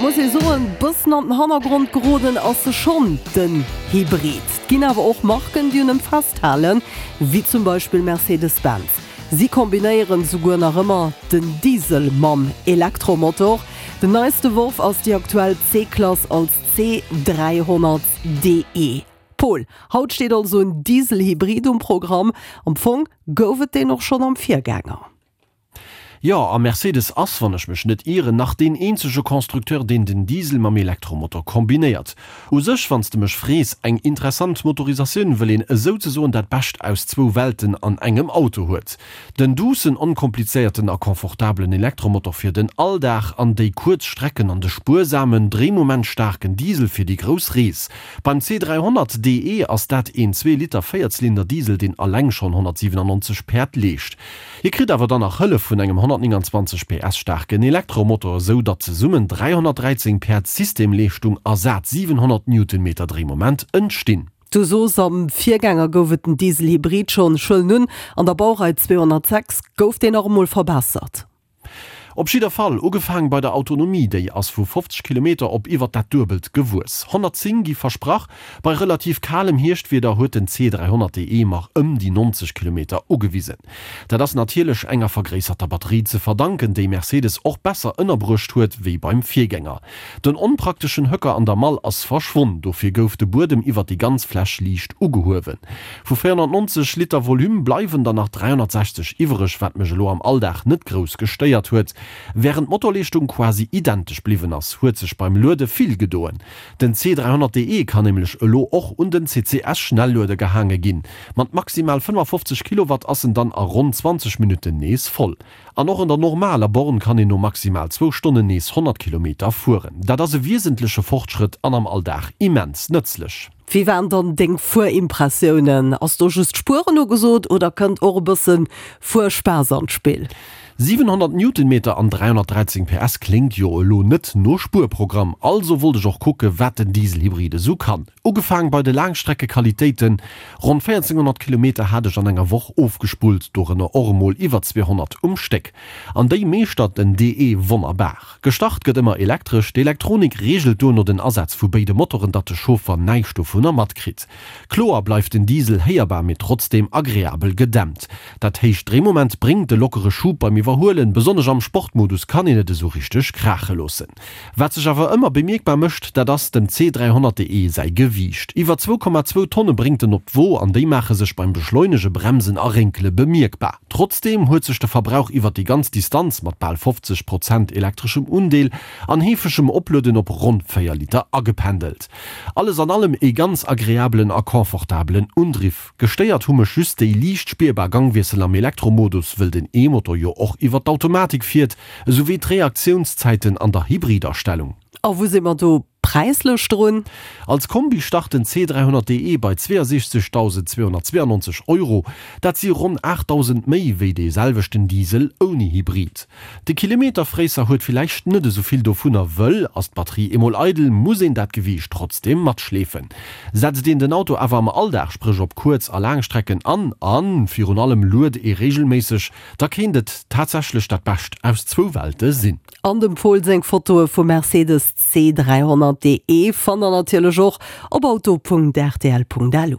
muss ee soen, bëssen an den Hannergrond geroden ass se schonn, den Hybrid. Et ginn awer och Marken, déi un em festhalen, wéi zum Beispill Mercedes-Benz. Si kombinéieren souguer nach ëmmer den Diesel mam Elektromotor. Den neiste Worf ass déi aktuell C-Klass als C300 DE. Paul, haut steet also en Diesel-Hybrid um Programm. Am Fong gouf et deen och schonn am Virgänger. Jo, a Mercedes ass, wann ech mech net ieren, nach deen eenzege Constructeur, deen den Diesel mam Elektromotor kombinéiert. U sech, wann s de mech frees, eng interessant Motorisatioun, wëll een esouzesoen dat Bescht aus zwou Welten an engem Auto huet. Den duussen, onkomplizéierten a confortabelen Elektromotor fir den Alldag an déi kuerz Strecken an de spuersamen, dréimomentstaarken Diesel fir déi grouss Rees. Beim C 300 DE ass dat een Zwee-Liter Véierzylinder-Diesel, deen alleng schonn 197 Päerd leescht. Hie kritt awer dann nach Hëllef vun engem 129 PS staarken Elektromotor, esou datt zesummen 313 Päerd Systemleeschtung a sat 700 Newtonmeter Dréimoment entstinn. Du soos, am Virgänger gouf et den Diesel-Hybrid schonn. Ech huelen un, an der Baurei 206 gouf deen nach emol verbessert. Op jidder Fall, ugefaang bei der Autonomie, déi ass vu 50 Kilometer op iwwer dat Duebelt gewuess. 110 gi versprach, bei relativ kalem Hierschtwieder huet den C 300 DE mar ëm déi 90 Kilometer ugewisen. Dat ass natierlech enger vergréisserter Batterie ze verdanken, déi Mercedes och besser ënnerbruecht huet wéi beim Virgänger. Den onprakteschen Höcker an der Mall ass verschwonn, dofir gouf de Buedem iwwer déi ganz Fläch liicht ugehuewen. Vu 490 Liter Volume bleiwen der nach 360 iwwereg, wat mech elo am Alldag net grouss gestéiert huet. Wärend d'Motorleeschtung quasi identesch bliwwen ass, huet sech beim Luede vill gedoen. Den C 300 DE kann nämlech elo och un den CCS-Schnellueder gehaange ginn. Mat maximal 55 Kilowatt ass en dann a ronn 20 Minutten nees voll. An och an der normaler Born kann een no maximal zwou Stonnen nees 100 Kilometer fueren. Dat ass e wiesentleche Fortschrëtt an am Alldag immens nëtzlech. Wéi waren dann deng Fuerimpressiounen? Ass do just Spueren ugesot oder kënnt och e bëssen Fuerspaass an d'Spill? 700 Newtonmeter an 313 PS kléngt jo elo net no Spuerprogramm, also wollt ech och kucke wat den Dieselhybrid esou kann. Ugefaang bei de Laangstreckequalitéiten, Ronn 1400 Kilometer hat ech an enger Woch ofgespullt, dorënner och emol iwwer 200 um Stéck. An déi meeschtert den DE wonnerbar. Gestart gëtt ëmmer elektresch, d'Elektronik reegelt duerno den Asaz vu béide Motoren, datt de Chauffer näischt dovunner matkritt. Kloer bleift den Diesel héierbar, mee trotzdeem agreabel gedämpt. Dat héicht Dréimoment bréngt e lockere Schub beim Iwwerhuelen, besonnesch am Sportmodus kann een et esou richteg kraache loossen. Wat sech awer ëmmer bemierkbar mécht, dat ass dem C 300 DE säi Gewiicht. Iwwer 2,2 Tonne bréngt en op d'Wo an déi maache sech beim Beschleunege, Bremsen a Rénkele bemierkbar. Trotzdeem huet sech de Verbrauch iwwer déi ganz Distanz mat bal 50 Prozent elektreschem Undeel an heefegem Oplueden op ronn 4 Liter agependelt. Alles an allem ee ganz agreabelen a confortabelen Undriff. Gestéiert hu mech just déi liicht spierbar Gangwiessel am Elektromodus, wëll den E-Motor jo och iwwer d'Automatik fiert, esou wéi d'Reaktionszäiten an der Hybridastellung. A wou si mer do präislech drun? Als Kombi start den C 300 DE bei 62.292 Euro, dat si ronn 8.000 méi wéi dee selwechten Diesel ouni Hybrid. De Kilometerfréisser huet villäicht net esou vill dovunner, wëll ass d'Batterie eemol eidel, muss een dat Gewiicht trotzdeem matschleefen. Setzt een den Auto awer am Alldag, spréch op Kuerz a Laangstrecken an, a virun allem luet ee reegelméisseg, da kéint et tatsächlech dat Bescht aus zwou Welte sinn. An dem Pol seng Fotoe vum Mercedes C 300 DE fannt der natierlech och op auto.rtl.lu.